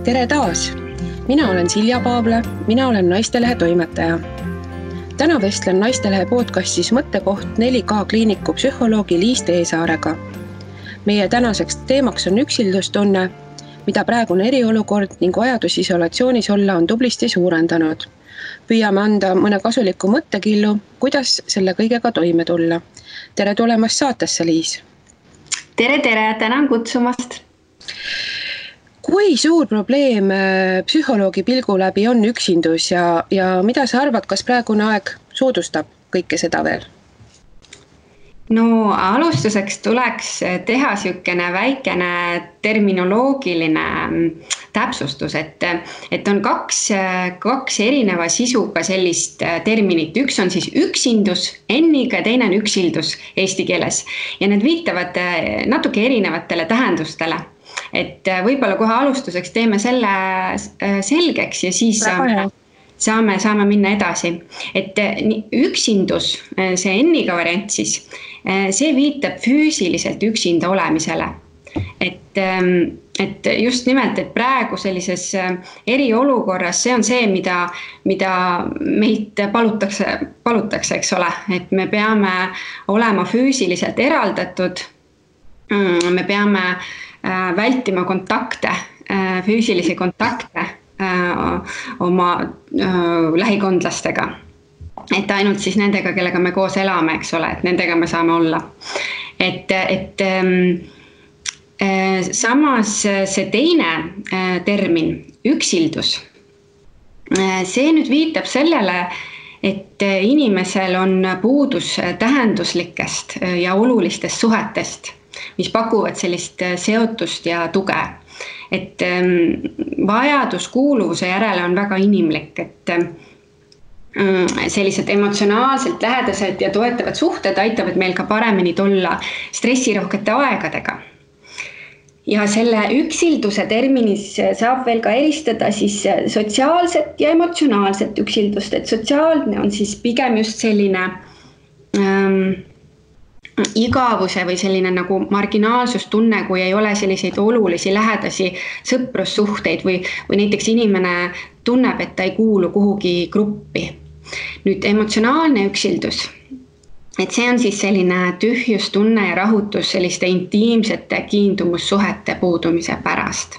Tere taas! Mina olen Silja Paavla, mina olen Naistelehe toimetaja. Täna vestlen Naistelehe podcastis Mõttekoht 4K kliiniku psühholoogi Liis Teesaarega. Meie tänaseks teemaks on üksildustunne, mida praegune eriolukord ning vajadus isolatsioonis olla on tublisti suurendanud. Püüame anda mõne kasuliku mõttekillu, kuidas selle kõigega toime tulla. Tere tulemast saatesse, Liis! Tere, tänan kutsumast! Kui suur probleem psühholoogi pilgu läbi on üksindus ja mida sa arvad, kas praegune aeg soodustab kõike seda veel? No alustuseks tuleks teha sükene väikene terminoloogiline täpsustus, et on kaks erineva sisuga sellist terminit. Üks on siis üksindus N-iga ja teine on üksildus eesti keeles. Ja need viitavad natuke erinevatele tähendustele. Et võib-olla kohe alustuseks teeme selle selgeks ja siis saame minna edasi. Et üksindus, see N-iga variant siis, see viitab füüsiliselt üksinda olemisele. Et just nimelt, et praegu sellises eriolukorras see on see, mida meilt palutakse, eks ole. Et me peame olema füüsiliselt eraldatud, me peame vältima kontakte, füüsilisi kontakte oma lähikondlastega. Et ainult siis nendega, kellega me koos elame, eks ole, et nendega me saame olla. Samas see teine termin, üksildus, see nüüd viitab sellele, et inimesel on puudus tähenduslikest ja olulistest suhetest, mis pakuvad sellist seotust ja tuge. Et vajadus kuuluvuse järele on väga inimlik, et sellised emotsionaalselt lähedased ja toetavad suhted aitavad meil ka paremini tulla stressirohkete aegadega. Ja selle üksilduse terminis saab veel ka eristada siis sotsiaalset ja emotsionaalset üksildust, et sotsiaalne on siis pigem just selline igavuse või selline nagu marginaalsustunne, kui ei ole selliseid olulisi lähedasi sõprussuhteid või näiteks inimene tunneb, et ta ei kuulu kuhugi gruppi. Nüüd emotsionaalne üksildus, et see on siis selline tühjustunne ja rahutus selliste intiimsete kiindumussuhete puudumise pärast.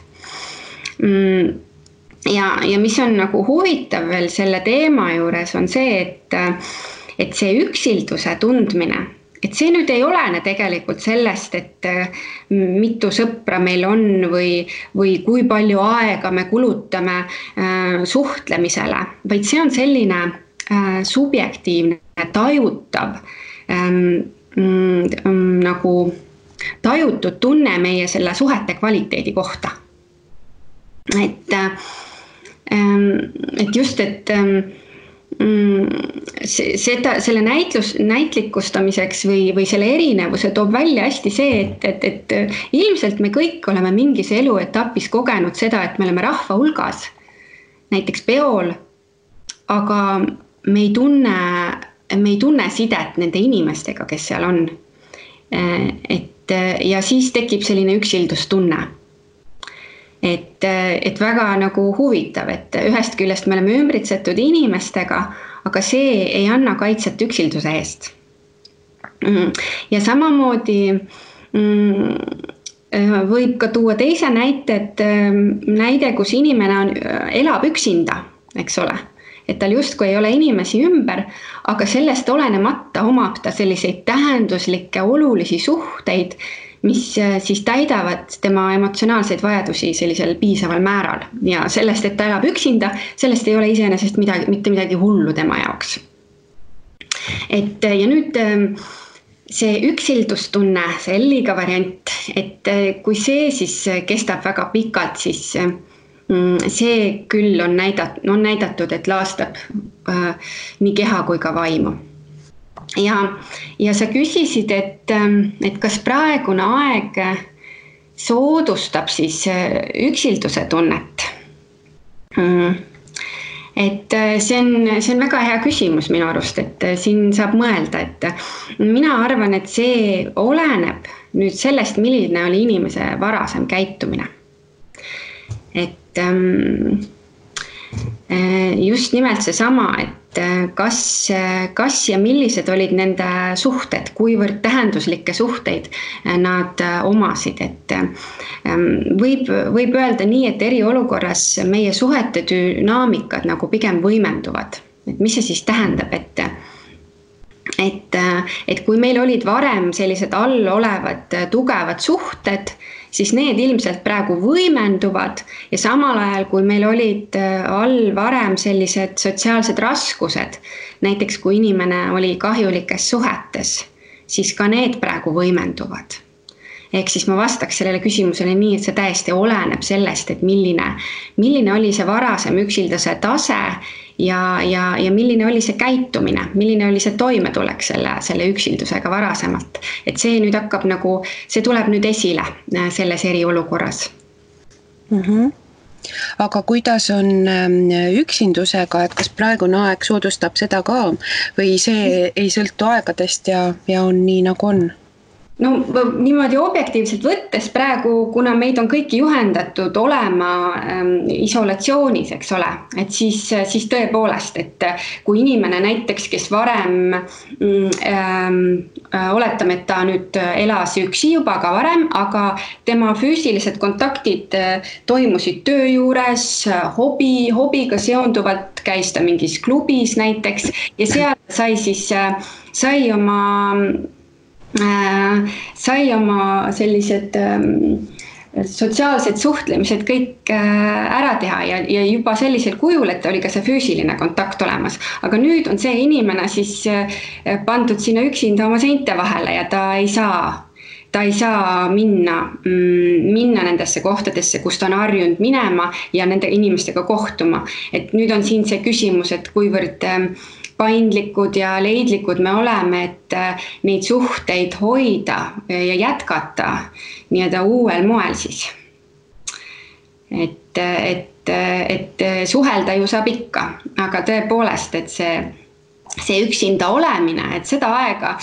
Ja mis on nagu huvitav veel selle teema juures on see, et see üksilduse tundmine, et see nüüd ei olene tegelikult sellest, et mitu sõpra meil on või kui palju aega me kulutame suhtlemisele, vaid see on selline subjektiivne, tajutav, nagu tajutud tunne meie selle suhete kvaliteedi kohta. Et just, et selle näitlikustamiseks või selle erinevuse toob välja hästi see, et ilmselt me kõik oleme mingis eluetapis kogenud seda, et me oleme rahva hulgas, näiteks peol, aga me ei tunne sidet nende inimestega, kes seal on. Ja siis tekib selline üksildustunne. Et väga nagu huvitav, et ühest küljest me oleme ümbritsetud inimestega, aga see ei anna kaitset üksilduse eest. Ja samamoodi võib ka tuua teise näide, kus inimene elab üksinda, eks ole. Et tal justkui ei ole inimesi ümber, aga sellest olenemata omab ta selliseid tähenduslikke olulisi suhteid, mis siis täidavad tema emotsionaalseid vajadusi sellisel piisaval määral. Ja sellest, et ta elab üksinda, sellest ei ole iseenesest mitte midagi hullu tema jaoks. Ja nüüd see üksildustunne, see L-iga variant, et kui see siis kestab väga pikalt, siis see küll on näidatud, et laastab nii keha kui ka vaimu. Ja sa küsisid, et kas praegune aeg soodustab siis üksilduse tunnet. Et see on väga hea küsimus minu arust, et siin saab mõelda, et mina arvan, et see oleneb nüüd sellest, milline oli inimese varasem käitumine. Et just nimelt seesama, et kas ja millised olid nende suhted, kuivõrd tähenduslikke suhteid nad omasid, et võib öelda nii, et eriolukorras meie suhete dünaamikad nagu pigem võimenduvad. Et mis see siis tähendab, et kui meil olid varem sellised all olevad tugevad suhted, siis need ilmselt praegu võimenduvad ja samal ajal, kui meil olid all varem sellised sotsiaalsed raskused, näiteks kui inimene oli kahjulikes suhetes, siis ka need praegu võimenduvad. Ehk siis ma vastaks sellele küsimusele nii, et see täiesti oleneb sellest, et milline oli see varasem üksildase tase ja milline oli see käitumine, milline oli see toimetulek selle üksildusega varasemalt. Et see nüüd hakkab nagu, see tuleb nüüd esile selles eriolukorras. Aga kuidas on üksindusega, et kas praegune aeg soodustab seda ka või see ei sõltu aegadest ja on nii nagu on? No niimoodi objektiivselt võttes praegu, kuna meid on kõiki juhendatud olema isolatsioonis, eks ole, et siis tõepoolest, et kui inimene näiteks, kes varem oletame, et ta nüüd elas üksi juba ka varem, aga tema füüsilised kontaktid toimusid töö juures, hobiga seonduvalt käis ta mingis klubis näiteks ja seal sai oma sellised sotsiaalsed suhtlemised kõik ära teha ja juba sellisel kujul, et oli ka see füüsiline kontakt olemas. Aga nüüd on see inimene siis pandud sinna üksinda oma seinte vahele ja ta ei saa minna nendesse kohtadesse, kus ta on harjunud minema ja nende inimestega kohtuma. Et nüüd on siin see küsimus, et kuivõrd paindlikud ja leidlikud me oleme, et neid suhteid hoida ja jätkata nii-öelda uuel moel siis. Et suhelda ju saab ikka, aga tõepoolest, et see üksinda olemine, et seda aega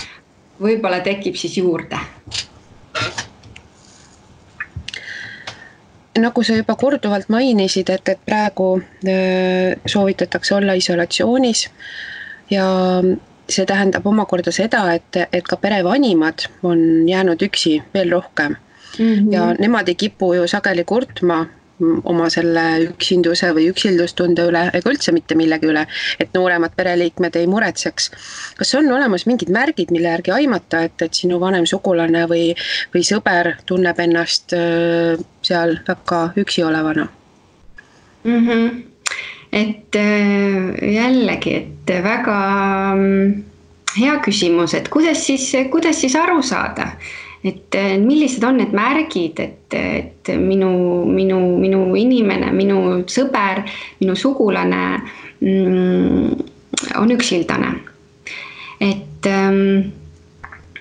võib-olla tekib siis juurde. Nagu sa juba korduvalt mainisid, et praegu soovitatakse olla isolatsioonis ja see tähendab omakorda seda, et ka perevanimad on jäänud üksi veel rohkem. Ja nemad ei kipu ju sageli kurtma oma selle üksinduse või üksildustunde üle ega üldse mitte millegi üle, et nooremad pereliikmed ei muretseks. Kas on olemas mingid märgid, mille järgi aimata, et sinu vanem sugulane või sõber tunneb ennast seal väga üksi olevana? Et jällegi, et väga hea küsimus, et kuidas siis aru saada, et millised on need märgid, et minu inimene, minu sõber, minu sugulane on üksildane. Et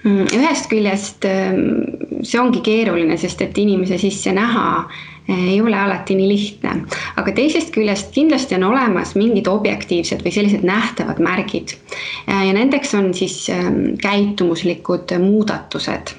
ühest küljest see ongi keeruline, sest et inimese sisse näha ei ole alati nii lihtne, aga teisest küljest kindlasti on olemas mingid objektiivsed või sellised nähtavad märgid ja nendeks on siis käitumuslikud muudatused.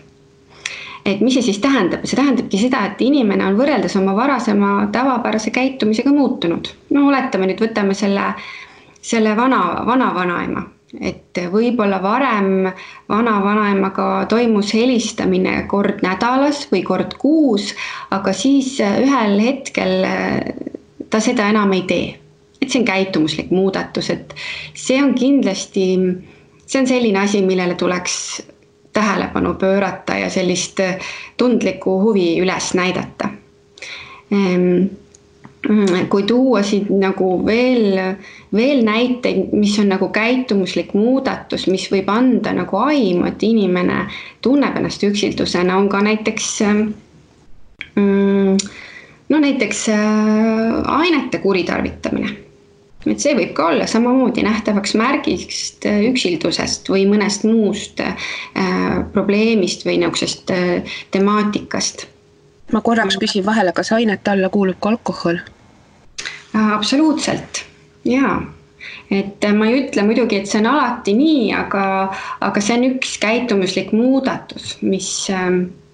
Et mis see siis tähendab? See tähendabki seda, et inimene on võrreldes oma varasema tavapärase käitumisega muutunud. No oletame nüüd, võtame selle vana-vanaema. Et võib-olla varem vana-vanaemaga toimus helistamine kord nädalas või kord kuus, aga siis ühel hetkel ta seda enam ei tee. Et see on käitumuslik muudatus, et see on kindlasti, see on selline asi, millele tuleks tähelepanu pöörata ja sellist tundlikku huvi üles näidata. Kui tuua siit nagu veel näiteid, mis on nagu käitumuslik muudatus, mis võib anda nagu aimu, et inimene tunneb ennast üksildusena, on ka näiteks ainete kuritarvitamine. Et see võib ka olla samamoodi nähtavaks märgist üksildusest või mõnest muust probleemist või niisugusest temaatikast. Ma korraks küsin vahele, kas ainete alla kuulub ka alkohol? Absoluutselt, jaa. Et ma ei ütle muidugi, et see on alati nii, aga see on üks käitumuslik muudatus, mis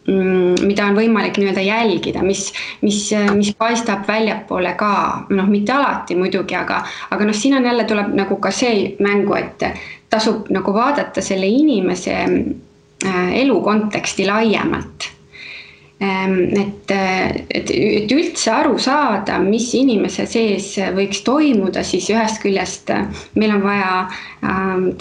mida on võimalik nii-öelda jälgida, mis paistab väljapoole ka, mitte alati muidugi, aga siin on jälle tuleb nagu ka see mängu, et tasub nagu vaadata selle inimese elu konteksti laiemalt. Et üldse aru saada, mis inimese sees võiks toimuda, siis ühest küljest meil on vaja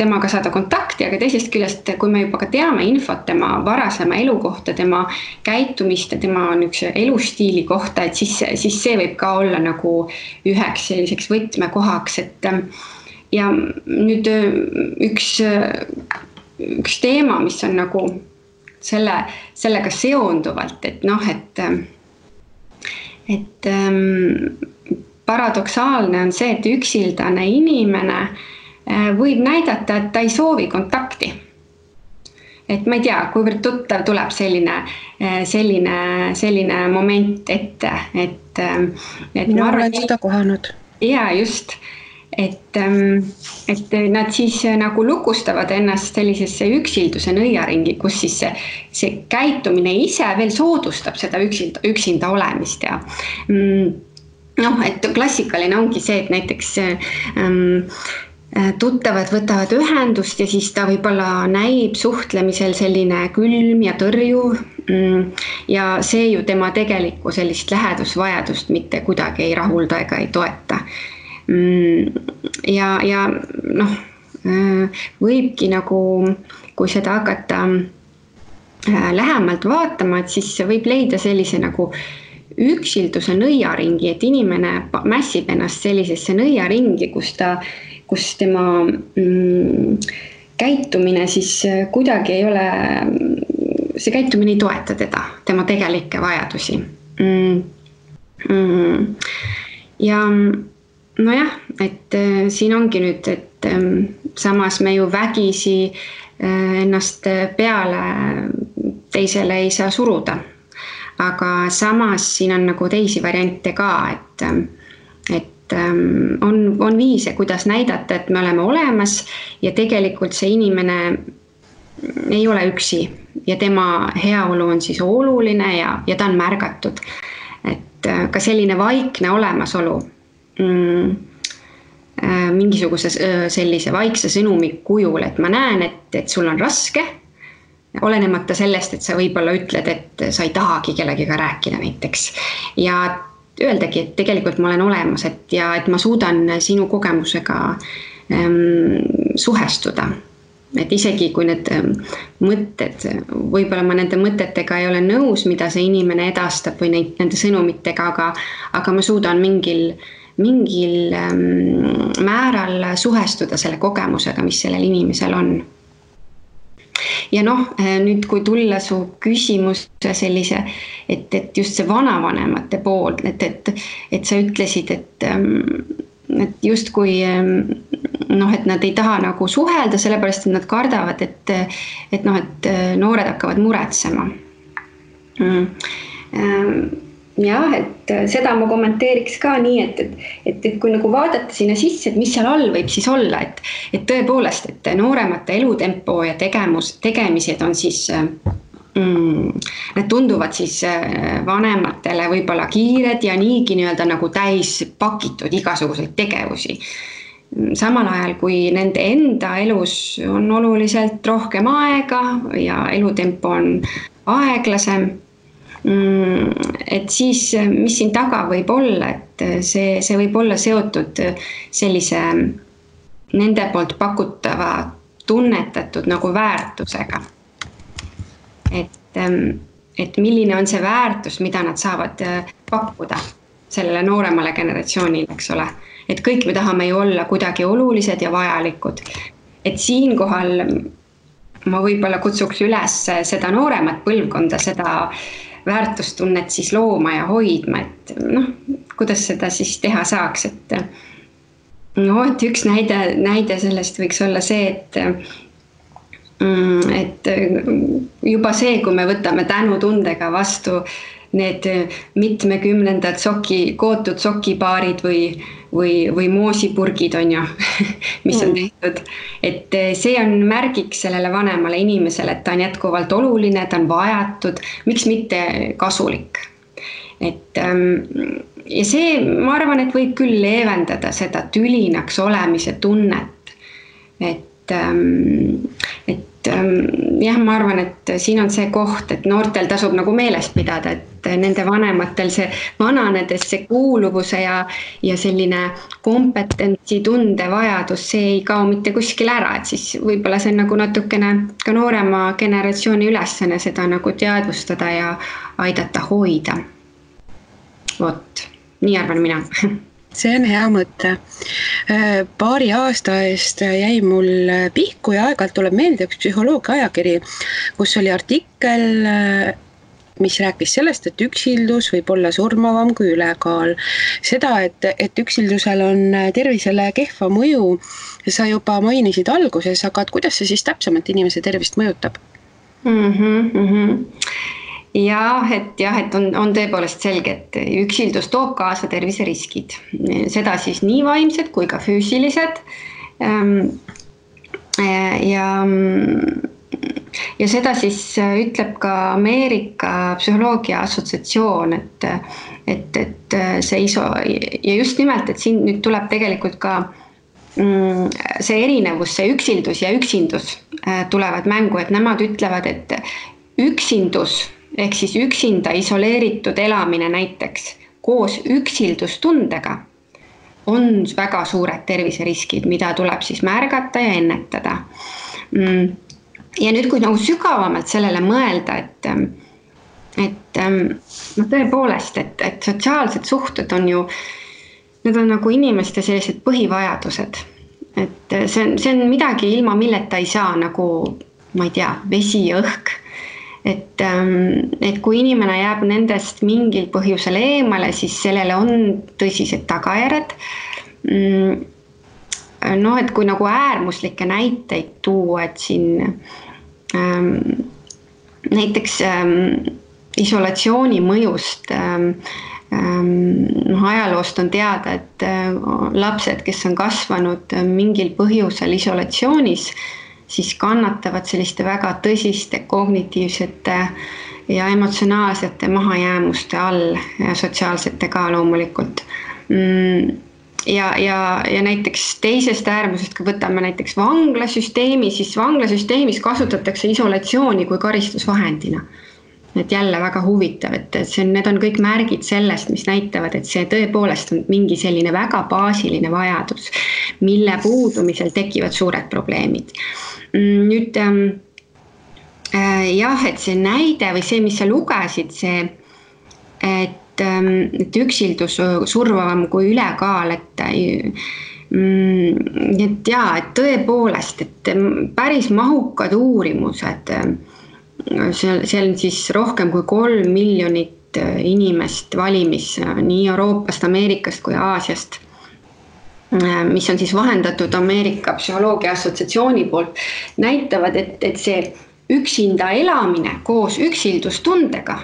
temaga saada kontakti, aga teisest küljest, kui me juba ka teame infot tema varasema elu kohta, tema käitumist ja tema elustiili kohta, et siis see võib ka olla nagu üheks selliseks võtmekohaks, et ja nüüd üks teema, mis on nagu sellega seonduvalt, et paradoksaalne on see, et üksildane inimene võib näidata, et ta ei soovi kontakti. Et ma ei tea, kuivõrd tuttav tuleb selline moment ette, et ma olen seda kohanud. Ja just. Et nad siis nagu lukustavad ennast sellisesse üksilduse nõiaringi, kus siis see käitumine ise veel soodustab seda üksinda olemist ja et klassikaline ongi see, et näiteks tuttavad võtavad ühendust ja siis ta võib-olla näib suhtlemisel selline külm ja tõrjuv ja see ju tema tegelikku sellist lähedusvajadust mitte kuidagi ei rahulda ega ei toeta. Ja võibki nagu, kui seda hakata lähemalt vaatama, et siis võib leida sellise nagu üksilduse nõiaringi, et inimene mässib ennast sellisesse nõiaringi, kus tema käitumine siis kuidagi ei ole, see käitumine ei toeta tema tegelikke vajadusi. Ja nojah, et siin ongi nüüd, et samas me ju vägisi ennast peale teisele ei saa suruda. Aga samas siin on nagu teisi variante ka, et on viise, kuidas näidata, et me oleme olemas ja tegelikult see inimene ei ole üksi ja tema heaolu on siis oluline ja ta on märgatud. Et ka selline vaikne olemasolu mingisuguse sellise vaikse sõnumi kujul, et ma näen, et sul on raske, olenemata sellest, et sa võib-olla ütled, et sa ei tahagi kellegiga rääkida näiteks. Ja öeldagi, et tegelikult ma olen olemas, et ma suudan sinu kogemusega suhestuda. Et isegi kui need mõtted, võib-olla ma nende mõtetega ei ole nõus, mida see inimene edastab või nende sõnumitega, aga ma suudan mingil määral suhestuda selle kogemusega, mis sellel inimesel on. Ja nüüd kui tulla su küsimuse sellise, et just see vanavanemate pool, et sa ütlesid, et just kui et nad ei taha nagu suhelda, sellepärast, et nad kardavad, et noored hakkavad muretsema. Jah, et seda ma kommenteeriks ka nii, et kui nagu vaadata sinna sisse, et mis seal all võib siis olla, et tõepoolest, et nooremate elutempo ja tegemised on siis, need tunduvad siis vanematele võib-olla kiired ja niigi nii-öelda nagu täis pakitud igasuguseid tegevusi. Samal ajal, kui nende enda elus on oluliselt rohkem aega ja elutempo on aeglasem, et siis, mis siin taga võib olla, et see võib olla seotud sellise nende poolt pakutava tunnetatud nagu väärtusega. Et milline on see väärtus, mida nad saavad pakkuda sellele nooremale generatsioonile, eks ole. Et kõik me tahame ju olla kuidagi olulised ja vajalikud. Et siinkohal ma võib-olla kutsuks üles seda nooremat põlvkonda, seda väärtustunnet siis looma ja hoidma, et kuidas seda siis teha saaks, et üks näide sellest võiks olla see, et juba see, kui me võtame tänutundega vastu need mitmekümnendad kootud sokipaarid või moosipurgid on ju, mis on tehtud. Et see on märgiks sellele vanemale inimesele, et ta on jätkuvalt oluline, ta on vajatud, miks mitte kasulik. Et ja see, ma arvan, et võib küll leevendada seda tülinaks olemise tunnet. Et jah, ma arvan, et siin on see koht, et noortel tasub nagu meelest pidada, et nende vanematel see vananedes see kuuluvuse ja selline kompetentsi tunde vajadus, see ei kao mitte kuskil ära, et siis võib-olla see on nagu natukene ka noorema generatsiooni ülesanne seda nagu teadvustada ja aidata hoida. Vot, nii arvan mina. See on hea mõte. Paari aasta eest jäi mul pihku ja aeg-ajalt tuleb meelde üks psühholoogia ajakiri, kus oli artikkel, mis rääkis sellest, et üksildus võib olla surmavam kui ülekaal. Seda, et üksildusel on tervisele kehva mõju, sa juba mainisid alguses, aga kuidas see siis täpsemalt inimese tervist mõjutab? Jah, et on tõepoolest selge, et üksildus toob kaasa terviseriskid. Seda siis nii vaimsed kui ka füüsilised. Ja seda siis ütleb ka Ameerika psühholoogia assotsiatsioon, et see ja just nimelt, et siin nüüd tuleb tegelikult ka see erinevus, see üksildus ja üksindus tulevad mängu, et nemad ütlevad, et üksindus ehk siis üksinda isoleeritud elamine näiteks koos üksildustundega on väga suured terviseriskid, mida tuleb siis märgata ja ennetada. Ja nüüd, kui nagu sügavamalt sellele mõelda, et tõepoolest, et sotsiaalsed suhted on ju, need on nagu inimeste sellised põhivajadused. Et see on midagi ilma milleta ei saa, nagu, ma ei tea, vesi ja õhk. Et kui inimene jääb nendest mingil põhjusel eemale, siis sellele on tõsised tagajärjed. No, et kui nagu äärmuslikke näiteid tuua, et siin näiteks isolatsiooni mõjust ajaloost on teada, et lapsed, kes on kasvanud mingil põhjusel isolatsioonis, siis kannatavad selliste väga tõsiste kognitiivsete ja emotsionaalsete mahajäämuste all ja sotsiaalsete ka loomulikult. Ja näiteks teisest äärmusest, kui võtame näiteks vanglasüsteemi, siis vanglasüsteemis kasutatakse isolatsiooni kui karistusvahendina. Et jälle väga huvitav, et need on kõik märgid sellest, mis näitavad, et see tõepoolest on mingi selline väga baasiline vajadus, mille puudumisel tekivad suured probleemid. Nüüd jah, et see näide või see, mis sa lugesid, see, et üksildus survavam kui ülekaal, et et tõepoolest, et päris mahukad uurimused, see on siis rohkem kui 3 miljonit inimest valimis nii Euroopast, Ameerikast kui Aasiast, mis on siis vahendatud Ameerika psühholoogia assotsiatsiooni poolt, näitavad, et see üksinda elamine koos üksildustundega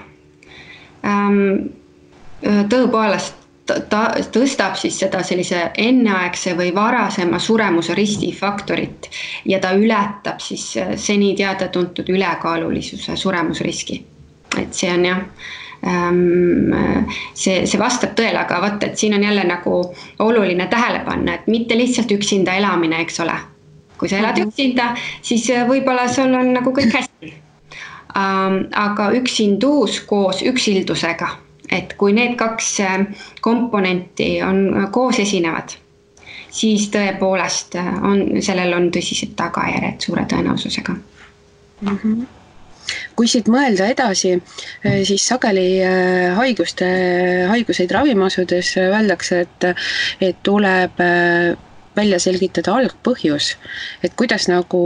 tõepoolest tõstab siis seda sellise enneaegse või varasema suremuse riskifaktorit ja ta ületab siis seni teada tuntud ülekaalulisuse suremusriski. Et see on jah, see vastab tõele, aga vaata, et siin on jälle nagu oluline tähele panna, et mitte lihtsalt üksinda elamine, eks ole. Kui sa elad üksinda, siis võib-olla sul on nagu kõik hästi. Aga üksindus koos üksildusega. Et kui need kaks komponenti on koos esinevad, siis tõepoolest sellel on tõsised tagajärjed suure tõenäosusega. Kui siit mõelda edasi, siis sageli haiguseid ravima asudes öeldakse, et tuleb välja selgitada algpõhjus, et kuidas nagu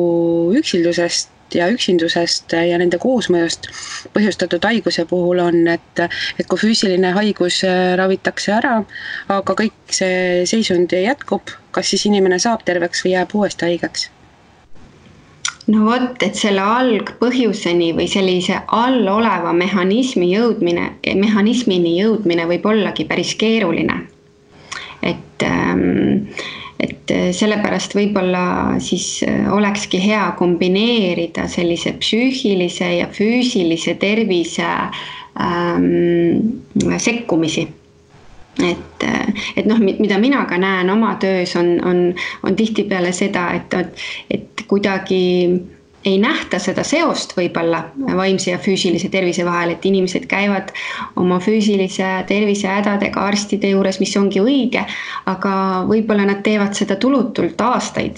üksildusest ja üksindusest ja nende koosmõjust põhjustatud haiguse puhul on, et kui füüsiline haigus ravitakse ära, aga kõik see seisund jätkub, kas siis inimene saab terveks või jääb uuesti haigeks? no vot, et selle algpõhjuseni või sellise alloleva mehhanismini jõudmine võib ollagi päris keeruline. Et sellepärast võib-olla siis olekski hea kombineerida sellise psüühilise ja füüsilise tervise sekkumisi. Et noh, mida mina ka näen oma töös on tihtipeale seda, et kuidagi ei nähta seda seost võib-olla vaimse ja füüsilise tervise vahel, et inimesed käivad oma füüsilise tervise hädadega arstide juures, mis ongi õige, aga võib-olla nad teevad seda tulutult aastaid.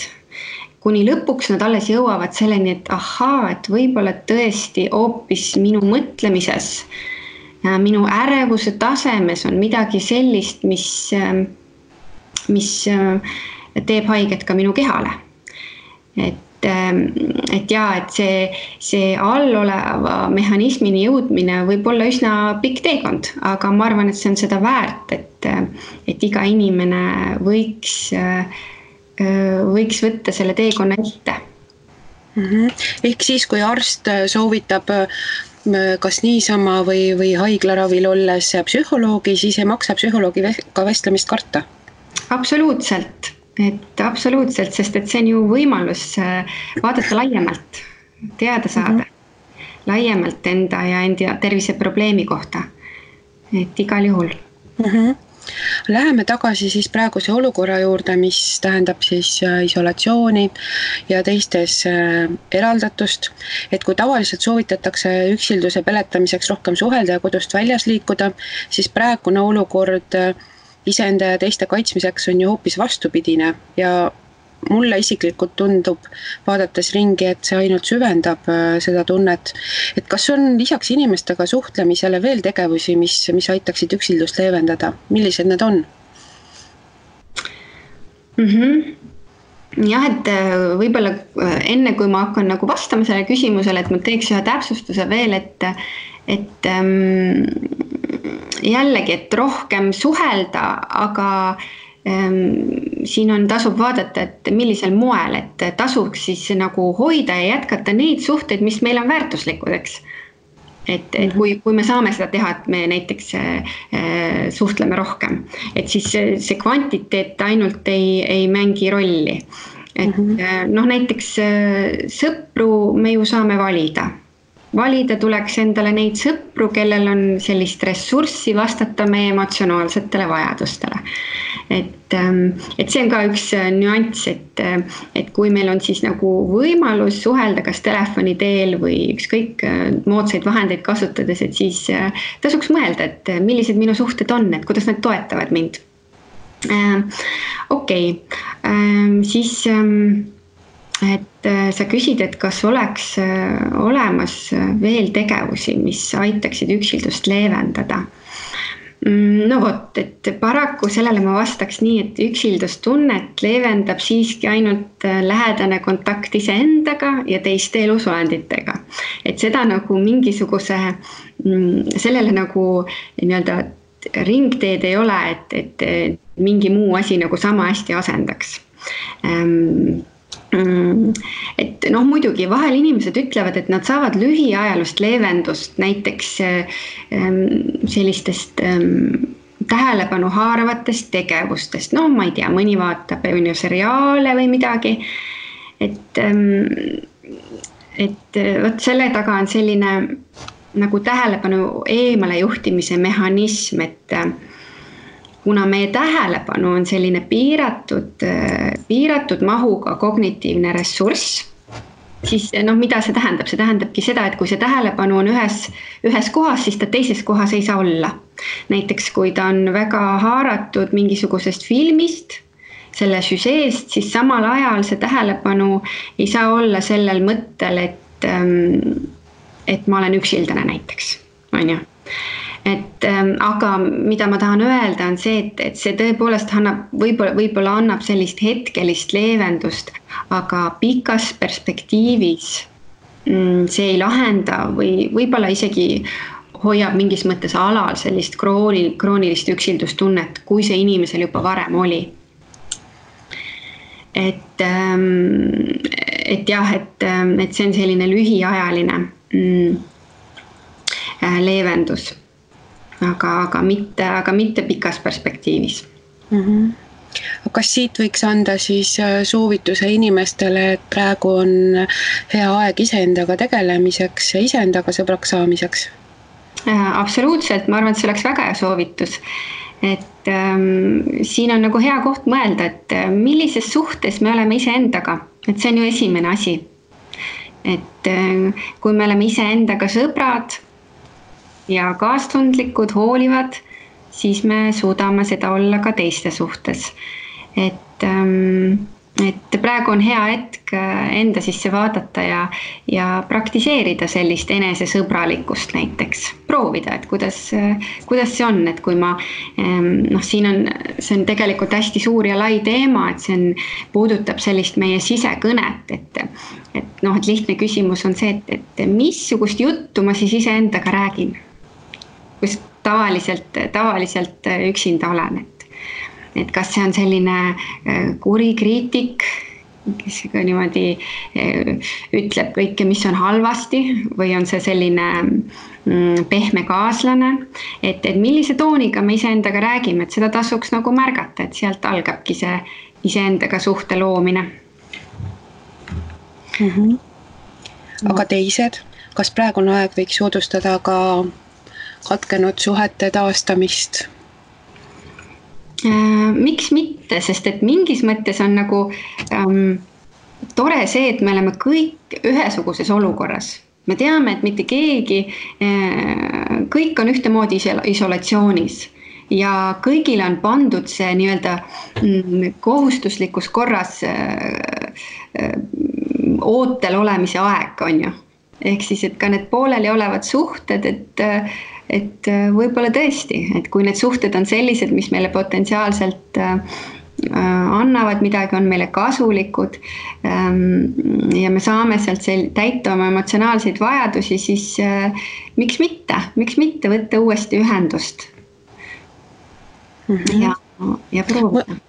Kuni lõpuks nad alles jõuavad selleni, et ahaa, et võib-olla tõesti hoopis minu mõtlemises, minu ärevuse tasemes on midagi sellist, mis teeb haiget ka minu kehale. Et see alloleva mehhanismini jõudmine võib olla üsna pikk teekond, aga ma arvan, et see on seda väärt, et iga inimene võiks võtta selle teekonna ette. Ehk siis, kui arst soovitab kas niisama või haiglaravil olles psühholoogi, siis ei maksa psühholoogiga vestlemist karta? Absoluutselt, sest et see on ju võimalus vaadata laiemalt, teada saada laiemalt enda ja enda terviseprobleemi kohta, et igal juhul. Läheme tagasi siis praeguse olukorra juurde, mis tähendab siis isolatsiooni ja teistes eraldatust, et kui tavaliselt soovitatakse üksilduse peletamiseks rohkem suhelda ja kodust väljas liikuda, siis praegune olukord iseenda ja teiste kaitsmiseks on ju hoopis vastupidine ja mulle isiklikult tundub, vaadates ringi, et see ainult süvendab seda tunnet, et kas on lisaks inimestega suhtlemisele veel tegevusi, mis aitaksid üksildust leevendada? Millised need on? Jah, et võib-olla enne kui ma hakkan nagu vastama selle küsimusele, et ma teeks ühe täpsustuse veel, et jällegi, et rohkem suhelda, aga siin tasub vaadata, et millisel moel, et tasuks siis nagu hoida ja jätkata neid suhteid, mis meil on väärtuslikud, eks. Et kui me saame seda teha, et me näiteks suhtleme rohkem, et siis see kvantiteet ainult ei mängi rolli. Et noh, näiteks sõpru me ju saame valida. Valida tuleks endale neid sõpru, kellel on sellist ressurssi vastata meie emotsionaalsetele vajadustele. Et see on ka üks nüanss, et kui meil on siis nagu võimalus suhelda kas telefoni teel või ükskõik moodsaid vahendeid kasutades, et siis tasuks mõelda, et millised minu suhted on, et kuidas nad toetavad mind. Siis et sa küsid, et kas oleks olemas veel tegevusi, mis aitaksid üksildust leevendada. No vot, et paraku sellele ma vastaks nii, et üksildustunnet leevendab siiski ainult lähedane kontakt iseendaga ja teiste elusolenditega. Et seda nagu mingisuguse, sellele nagu nii-öelda ringteed ei ole, et mingi muu asi nagu sama hästi asendaks. Et noh, muidugi vahel inimesed ütlevad, et nad saavad lühiajalust leevendust näiteks sellistest tähelepanu haaravatest tegevustest. No ma ei tea, mõni vaatab seriaale või midagi. Et võt selle taga on selline nagu tähelepanu eemale juhtimise mehhanism, et kuna meie tähelepanu on selline piiratud mahuga kognitiivne ressurss, siis noh, mida see tähendab? See tähendabki seda, et kui see tähelepanu on ühes kohas, siis ta teises kohas ei saa olla. Näiteks kui ta on väga haaratud mingisugusest filmist, selle süžeest, siis samal ajal see tähelepanu ei saa olla sellel mõttel, et ma olen üksildane näiteks, on ju. Aga mida ma tahan öelda on see, et see tõepoolest võib-olla annab sellist hetkelist leevendust, aga pikas perspektiivis see ei lahenda või võib-olla isegi hoiab mingis mõttes alal sellist kroonilist üksildustunnet, kui see inimesel juba varem oli. et jah, et see on selline lühiajaline leevendus, aga mitte pikas perspektiivis. Kas siit võiks anda siis soovituse inimestele, et praegu on hea aeg iseendaga tegelemiseks ja iseendaga sõbraks saamiseks? Absoluutselt, ma arvan, et see oleks väga hea soovitus. Et siin on nagu hea koht mõelda, et millises suhtes me oleme iseendaga, et see on ju esimene asi. Et kui me oleme iseendaga sõbrad ja kaastundlikud, hoolivad, siis me suudame seda olla ka teiste suhtes. Et praegu on hea hetk enda sisse vaadata ja praktiseerida sellist enesesõbralikkust näiteks. Proovida, et kuidas see on, et kui ma, see on tegelikult hästi suur ja lai teema, et see puudutab sellist meie sisekõnet, et lihtne küsimus on see, et missugust juttu ma siis iseendaga räägin, kus tavaliselt üksinda olen, et kas see on selline kuri kriitik, kes niimoodi ütleb kõike, mis on halvasti, või on see selline pehme kaaslane, et millise tooniga me iseendaga räägime, et seda tasuks nagu märgata, et sealt algabki see iseendaga suhte loomine. Aga teised, kas praegune aeg võiks soodustada ka katkenud suhete taastamist? Miks mitte, sest et mingis mõttes on nagu tore see, et me oleme kõik ühesuguses olukorras. Me teame, et mitte keegi, kõik on ühtemoodi isolatsioonis ja kõigile on pandud see nii-öelda kohustuslikus korras ootel olemise aeg, on ju. Ehk siis, et ka need pooleli olevad suhted, et võib-olla tõesti, et kui need suhted on sellised, mis meile potentsiaalselt annavad midagi, on meile kasulikud ja me saame sealt täita oma emotsionaalseid vajadusi, siis miks mitte võtta uuesti ühendust ja proovida.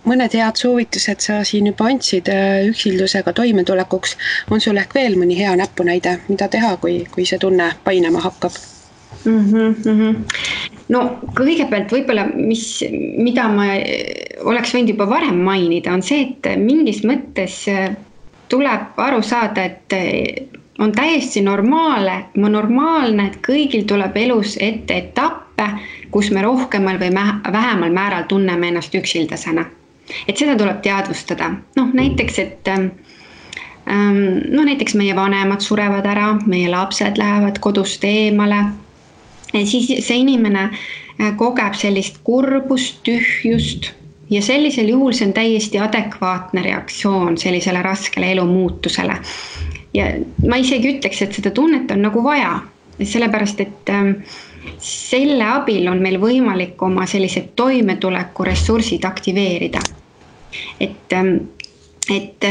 Mõned head soovitused sa siin juba andsid üksildusega toimetulekuks. On sul ehk veel mõni hea näpunäide, mida teha, kui see tunne painama hakkab? No kõigepealt võib-olla, mida ma oleks võinud juba varem mainida, on see, et mingis mõttes tuleb aru saada, et on täiesti normaalne, et kõigil tuleb elus ette etappe, kus me rohkemal või vähemal määral tunneme ennast üksildasena. Et seda tuleb teadvustada. Näiteks, näiteks meie vanemad surevad ära, meie lapsed lähevad kodust eemale. Siis see inimene kogeb sellist kurbust, tühjust ja sellisel juhul see on täiesti adekvaatne reaktsioon sellisele raskele elu muutusele. Ja ma isegi ütleks, et seda tunnet on nagu vaja, sellepärast, et selle abil on meil võimalik oma sellised toimetuleku ressursid aktiveerida. Et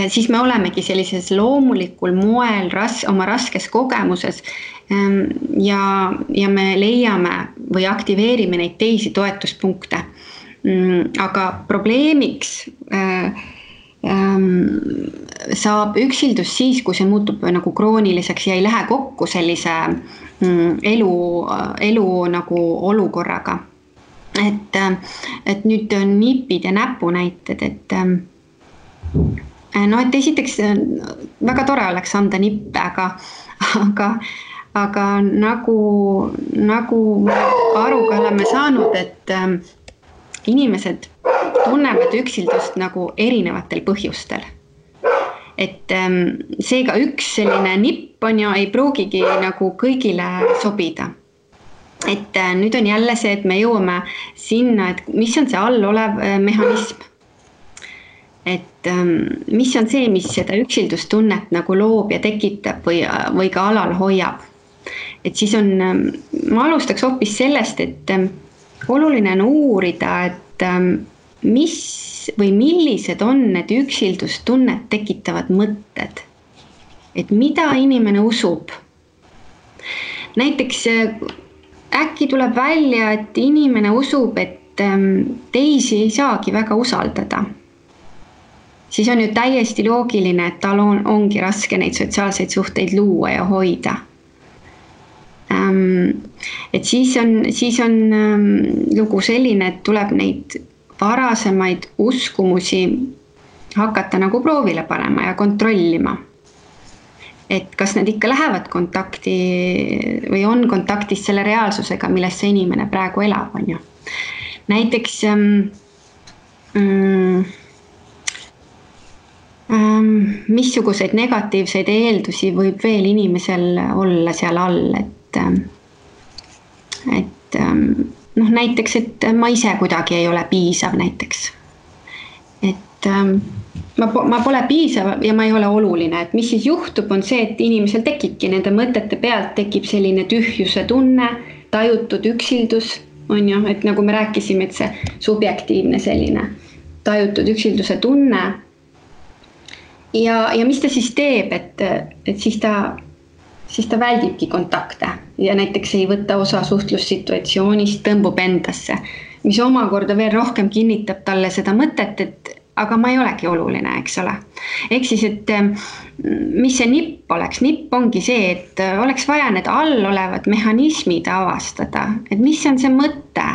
siis me olemegi sellises loomulikul moel oma raskes kogemuses ja me leiame või aktiveerime neid teisi toetuspunkte. Aga probleemiks saab üksildus siis, kui see muutub nagu krooniliseks ja ei lähe kokku sellise elu nagu olukorraga. Et nüüd on nipid ja näpunäited, et esiteks väga tore oleks anda nippe, aga nagu aruga oleme saanud, et inimesed tunnevad üksildust nagu erinevatel põhjustel. Et seega üks selline nipp on ju ei pruugigi nagu kõigile sobida. Et nüüd on jälle see, et me jõuame sinna, et mis on see all olev mehhanism. Et mis on see, mis seda üksildustunnet nagu loob ja tekitab või ka alal hoiab. Et siis ma alustaks hoopis sellest, et oluline on uurida, et millised on need üksildustunnet tekitavad mõtted. Et mida inimene usub. Näiteks äkki tuleb välja, et inimene usub, et teisi ei saagi väga usaldada. siis on ju täiesti loogiline, et tal ongi raske neid sotsiaalseid suhteid luua ja hoida. Et siis on lugu selline, et tuleb neid varasemaid uskumusi hakata nagu proovile panema ja kontrollima. Et kas nad ikka lähevad kontakti või on kontaktis selle reaalsusega, milles see inimene praegu elab, on ju. Näiteks missuguseid negatiivseid eeldusi võib veel inimesel olla seal all, et näiteks, et ma ise kuidagi ei ole piisav näiteks. Et ma pole piisav ja ma ei ole oluline, et mis siis juhtub, on see, et inimesel tekibki nende mõtete pealt tekib selline tühjuse tunne, tajutud üksildus, on ju, et nagu me rääkisime, et see subjektiivne selline tajutud üksilduse tunne. Ja mis ta siis teeb, et siis ta väldibki kontakte ja näiteks ei võta osa suhtlussituatsioonist, tõmbub endasse, mis omakorda veel rohkem kinnitab talle seda mõtet, et aga ma ei olegi oluline, eks ole. Ehk siis, et mis see nipp oleks? Nipp ongi see, et oleks vaja need all olevad mehhanismid avastada, et mis on see mõte,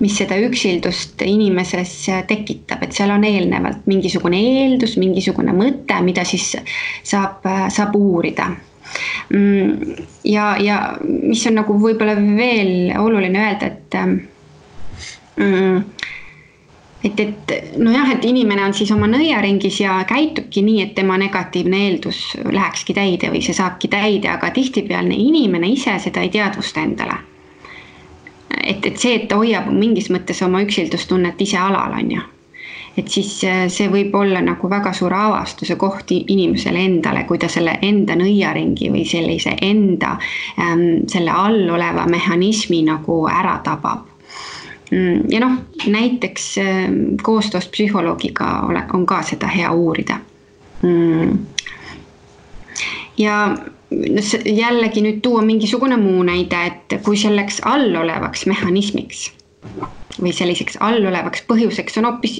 mis seda üksildust inimeses tekitab, et seal on eelnevalt mingisugune eeldus, mingisugune mõte, mida siis saab uurida. Ja mis on nagu võib-olla veel oluline öelda, et inimene on siis oma nõiaringis ja käitubki nii, et tema negatiivne eeldus lähekski täide või see saabki täide, aga tihtipealne inimene ise seda ei teadvusta endale. Et see, et ta hoiab mingis mõttes oma üksildustunnet ise alal, on ju. Et siis see võib olla nagu väga suur avastuse koht inimesele endale, kui ta selle enda nõiaringi või sellise enda selle all oleva mehhanismi nagu ära tabab. Ja näiteks koostöös psühholoogiga on ka seda hea uurida. Ja jällegi nüüd tuua mingisugune muu näide, et kui selleks allolevaks mehhanismiks või selliseks allolevaks põhjuseks on hoopis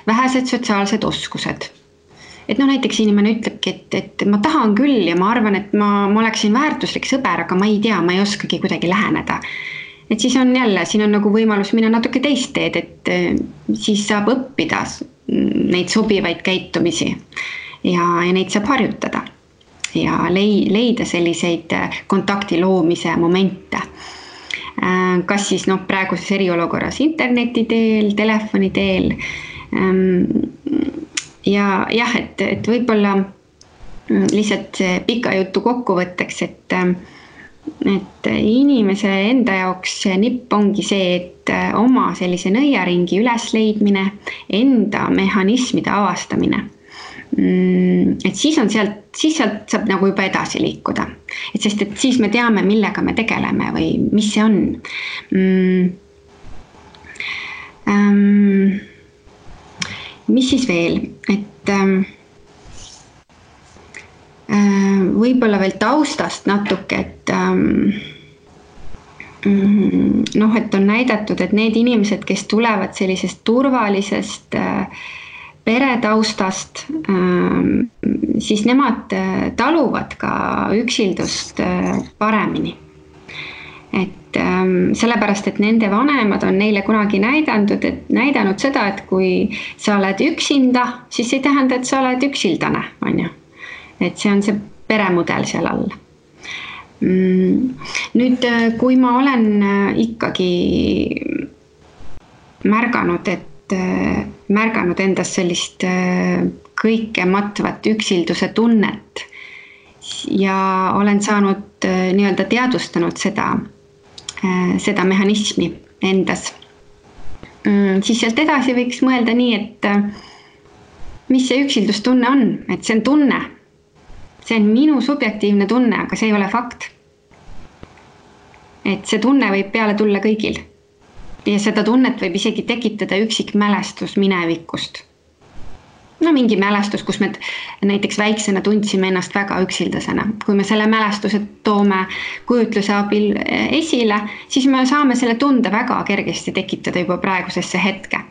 vähesed sotsiaalsed oskused. Et näiteks inimene ütlebki, et ma tahan küll ja ma arvan, et ma oleksin väärtuslik sõber, aga ma ei tea, ma ei oskagi kuidagi läheneda. Et siis on jälle, siin on nagu võimalus minna natuke teist teed, et siis saab õppida neid sobivaid käitumisi ja neid saab harjutada ja leida selliseid kontakti loomise momente. Kas siis praeguses eriolukorras interneti teel, telefoni teel. Ja jah, et võib-olla lihtsalt pika jutu kokkuvõtteks, et inimese enda jaoks nipp ongi see, et oma sellise nõiaringi ülesleidmine, enda mehhanismide avastamine. Et siis sealt saab nagu juba edasi liikuda. Et sest, et siis me teame, millega me tegeleme või mis see on. Mis siis veel? Et võib-olla veel taustast natuke, et on näidatud, et need inimesed, kes tulevad sellisest turvalisest peretaustast, siis nemad taluvad ka üksildust paremini. Et sellepärast, et nende vanemad on neile kunagi näidanud seda, et kui sa oled üksinda, siis ei tähenda, et sa oled üksildane, on ju. Et see on see peremudel seal all. Nüüd, kui ma olen ikkagi märganud endas sellist kõike matvat üksilduse tunnet ja olen saanud nii-öelda teadvustanud seda mehhanismi endas, siis sealt edasi võiks mõelda nii, et mis see üksildustunne on, et see on tunne. See on minu subjektiivne tunne, aga see ei ole fakt. Et see tunne võib peale tulla kõigil. Ja seda tunnet võib isegi tekitada üksik mälestus minevikust. Mingi mälestus, kus me näiteks väiksena tundsime ennast väga üksildasena. Kui me selle mälestuse toome kujutluse abil esile, siis me saame selle tunde väga kergesti tekitada juba praegusesse hetke.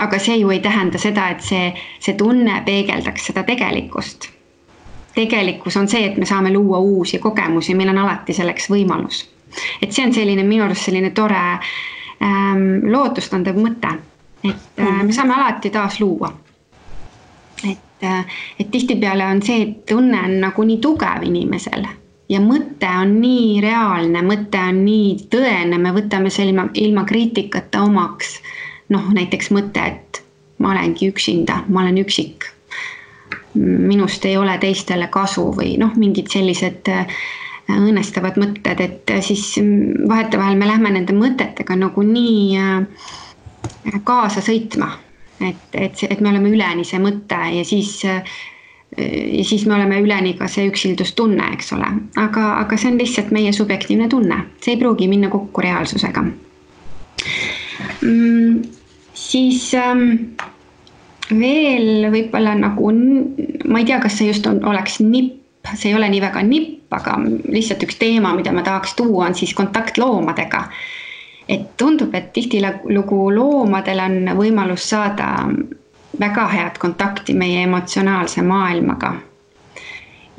aga see ju ei tähenda seda, et see tunne peegeldaks seda tegelikkust. Tegelikkus on see, et me saame luua uusi kogemusi, meil on alati selleks võimalus. Et see on selline minu arust selline tore lootustandev mõte, et me saame alati taas luua. Et tihtipeale on see, et tunne on nagu nii tugev inimesel ja mõte on nii reaalne, mõte on nii tõene, me võtame selle ilma kriitikata omaks. Näiteks mõte, et ma olengi üksinda, ma olen üksik. Minust ei ole teistele kasu või mingid sellised õnnestavad mõtted, et siis vahetevahel me lähme nende mõtetega nagu nii kaasa sõitma, et me oleme üleni see mõte ja siis me oleme üleni ka see üksildustunne, eks ole. Aga see on lihtsalt meie subjektiivne tunne, see ei pruugi minna kokku reaalsusega. Siis veel võib-olla nagu, ma ei tea, kas see just oleks nipp, see ei ole nii väga nipp, aga lihtsalt üks teema, mida ma tahaks tuua, on siis kontakt loomadega. Et tundub, et tihtilugu loomadel on võimalus saada väga head kontakti meie emotsionaalse maailmaga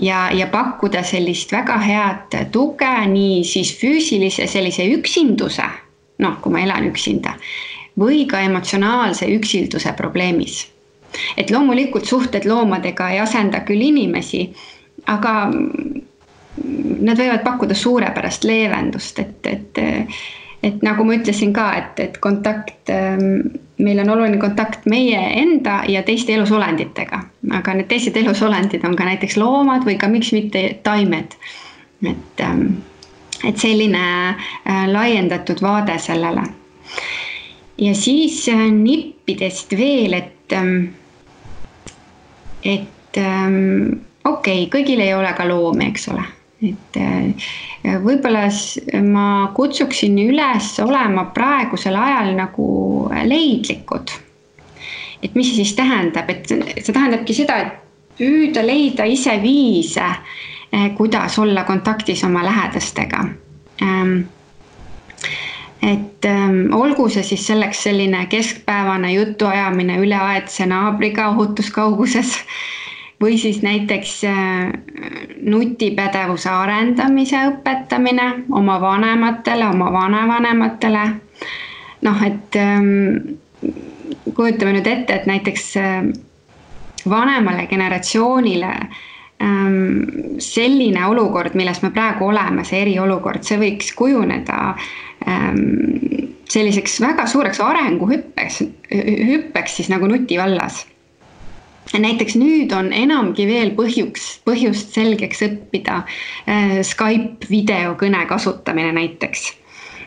ja pakkuda sellist väga head tuge nii siis füüsilise sellise üksinduse, kui ma elan üksinda, või ka emotsionaalse üksilduse probleemis. Et loomulikult suhted loomadega ei asenda küll inimesi, aga nad võivad pakkuda suurepärast leevendust, et nagu ma ütlesin ka, et kontakt, meil on oluline kontakt meie enda ja teiste elusolenditega, aga need teised elusolendid on ka näiteks loomad või ka miks mitte taimed. Et selline laiendatud vaade sellele. Ja siis nippidest veel, et okei, kõigil ei ole ka loomi, eks ole. Et võib-olla ma kutsuksin üles olema praegusel ajal nagu leidlikud. Et mis see siis tähendab? Et see tähendabki seda, et püüda leida ise viise, kuidas olla kontaktis oma lähedastega. Et olgu see siis selleks selline keskpäevane jutuajamine üleaedse naabriga ohutuskauguses või siis näiteks nutipädevuse arendamise õpetamine oma vanematele, oma vanavanematele. Et kujutame nüüd ette, et näiteks vanemale generatsioonile selline olukord, milles me praegu oleme, see eriolukord, see võiks kujuneda selliseks väga suureks arenguhüppeks siis nagu nuti vallas. Näiteks nüüd on enamgi veel põhjust selgeks õppida Skype videokõne kasutamine näiteks.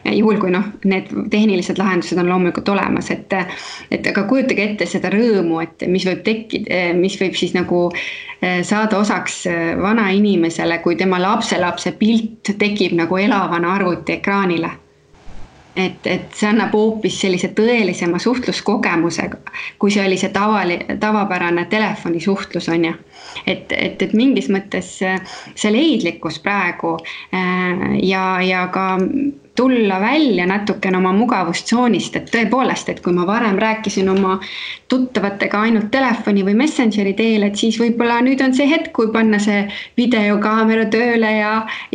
Juhul kui need tehnilised lahendused on loomulikult olemas, et aga kujutage ette seda rõõmu, et mis võib tekkida, mis võib siis nagu saada osaks vana inimesele, kui tema lapselapse pilt tekib nagu elavana arvuti ekraanile. Et see annab hoopis sellise tõelisema suhtluskogemusega, kui see oli see tavapärane telefonisuhtlus on ja. Et mingis mõttes see leidlikkus praegu ja ka tulla välja natukene oma mugavustsoonist, et tõepoolest, et kui ma varem rääkisin oma tuttavatega ainult telefoni või messengeri teel, et siis võib-olla nüüd on see hetk, kui panna see videokaamera tööle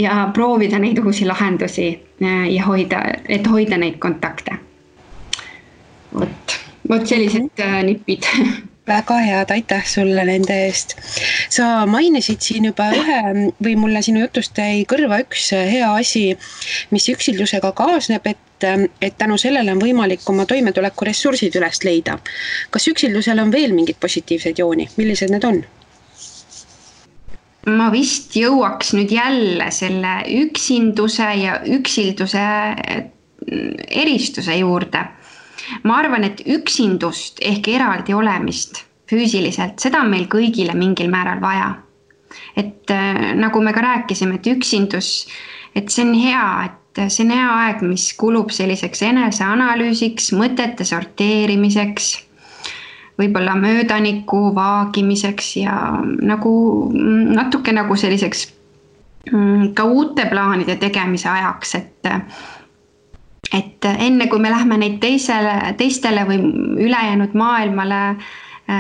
ja proovida neid uusi lahendusi ja hoida neid kontakte. Vot sellised nipid. Väga head, aitäh sulle nende eest. Sa mainisid siin juba või mulle sinu jutust jäi kõrva üks hea asi, mis üksildusega kaasneb, et tänu sellele on võimalik oma toimetuleku ressursid üles leida. Kas üksildusel on veel mingid positiivsed jooni? Millised need on? Ma vist jõuaks nüüd jälle selle üksinduse ja üksilduse eristuse juurde. Ma arvan, et üksindust ehk eraldi olemist füüsiliselt, seda on meil kõigile mingil määral vaja. Et nagu me ka rääkisime, et üksindus, et see on hea, et see on hea aeg, mis kulub selliseks eneseanalüüsiks, mõtete sorteerimiseks, võib-olla möödaniku vaagimiseks ja nagu natuke nagu selliseks ka uute plaanide tegemise ajaks, et enne kui me lähme neid teistele või ülejäänud maailmale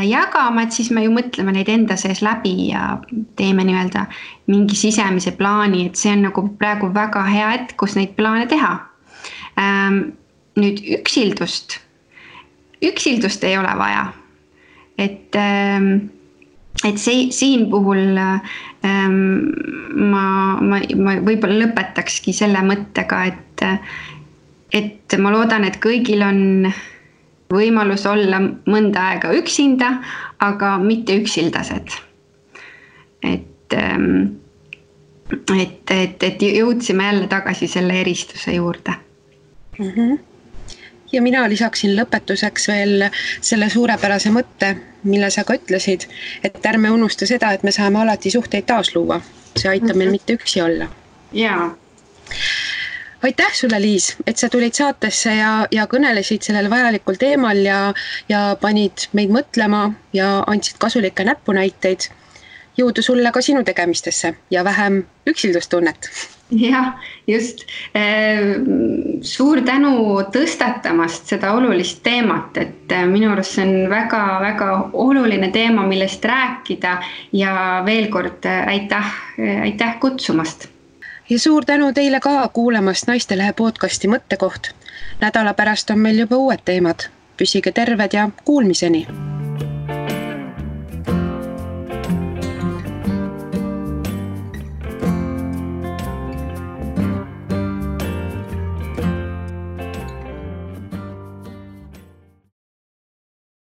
jagama, et siis me ju mõtleme neid enda sees läbi ja teeme nii-öelda mingi sisemise plaani, et see on nagu praegu väga hea hetk, kus neid plaane teha. Nüüd üksildust ei ole vaja, et siin puhul ma võib-olla lõpetakski selle mõttega, et ma loodan, et kõigil on võimalus olla mõnda aega üksinda, aga mitte üksildased. Et jõudsime jälle tagasi selle eristuse juurde. Ja mina lisaksin lõpetuseks veel selle suurepärase mõtte, mille sa ka ütlesid, et ärme unusta seda, et me saame alati suhteid taasluua. See aitab meil mitte üksi olla. Jaa. Aitäh sulle, Liis, et sa tulid saatesse ja kõnelesid sellel vajalikul teemal ja panid meid mõtlema ja andsid kasulikke näpunäiteid. Jõudu sulle ka sinu tegemistesse ja vähem üksildustunnet. Jah, just. Suur tänu tõstatamast seda olulist teemat, et minu arust see on väga oluline teema, millest rääkida ja veel kord aitäh kutsumast. Ja suur tänu teile ka kuulamast Naistelehe podcasti Mõttekoht. Nädala pärast on meil juba uued teemad. Püsige terved ja kuulmiseni!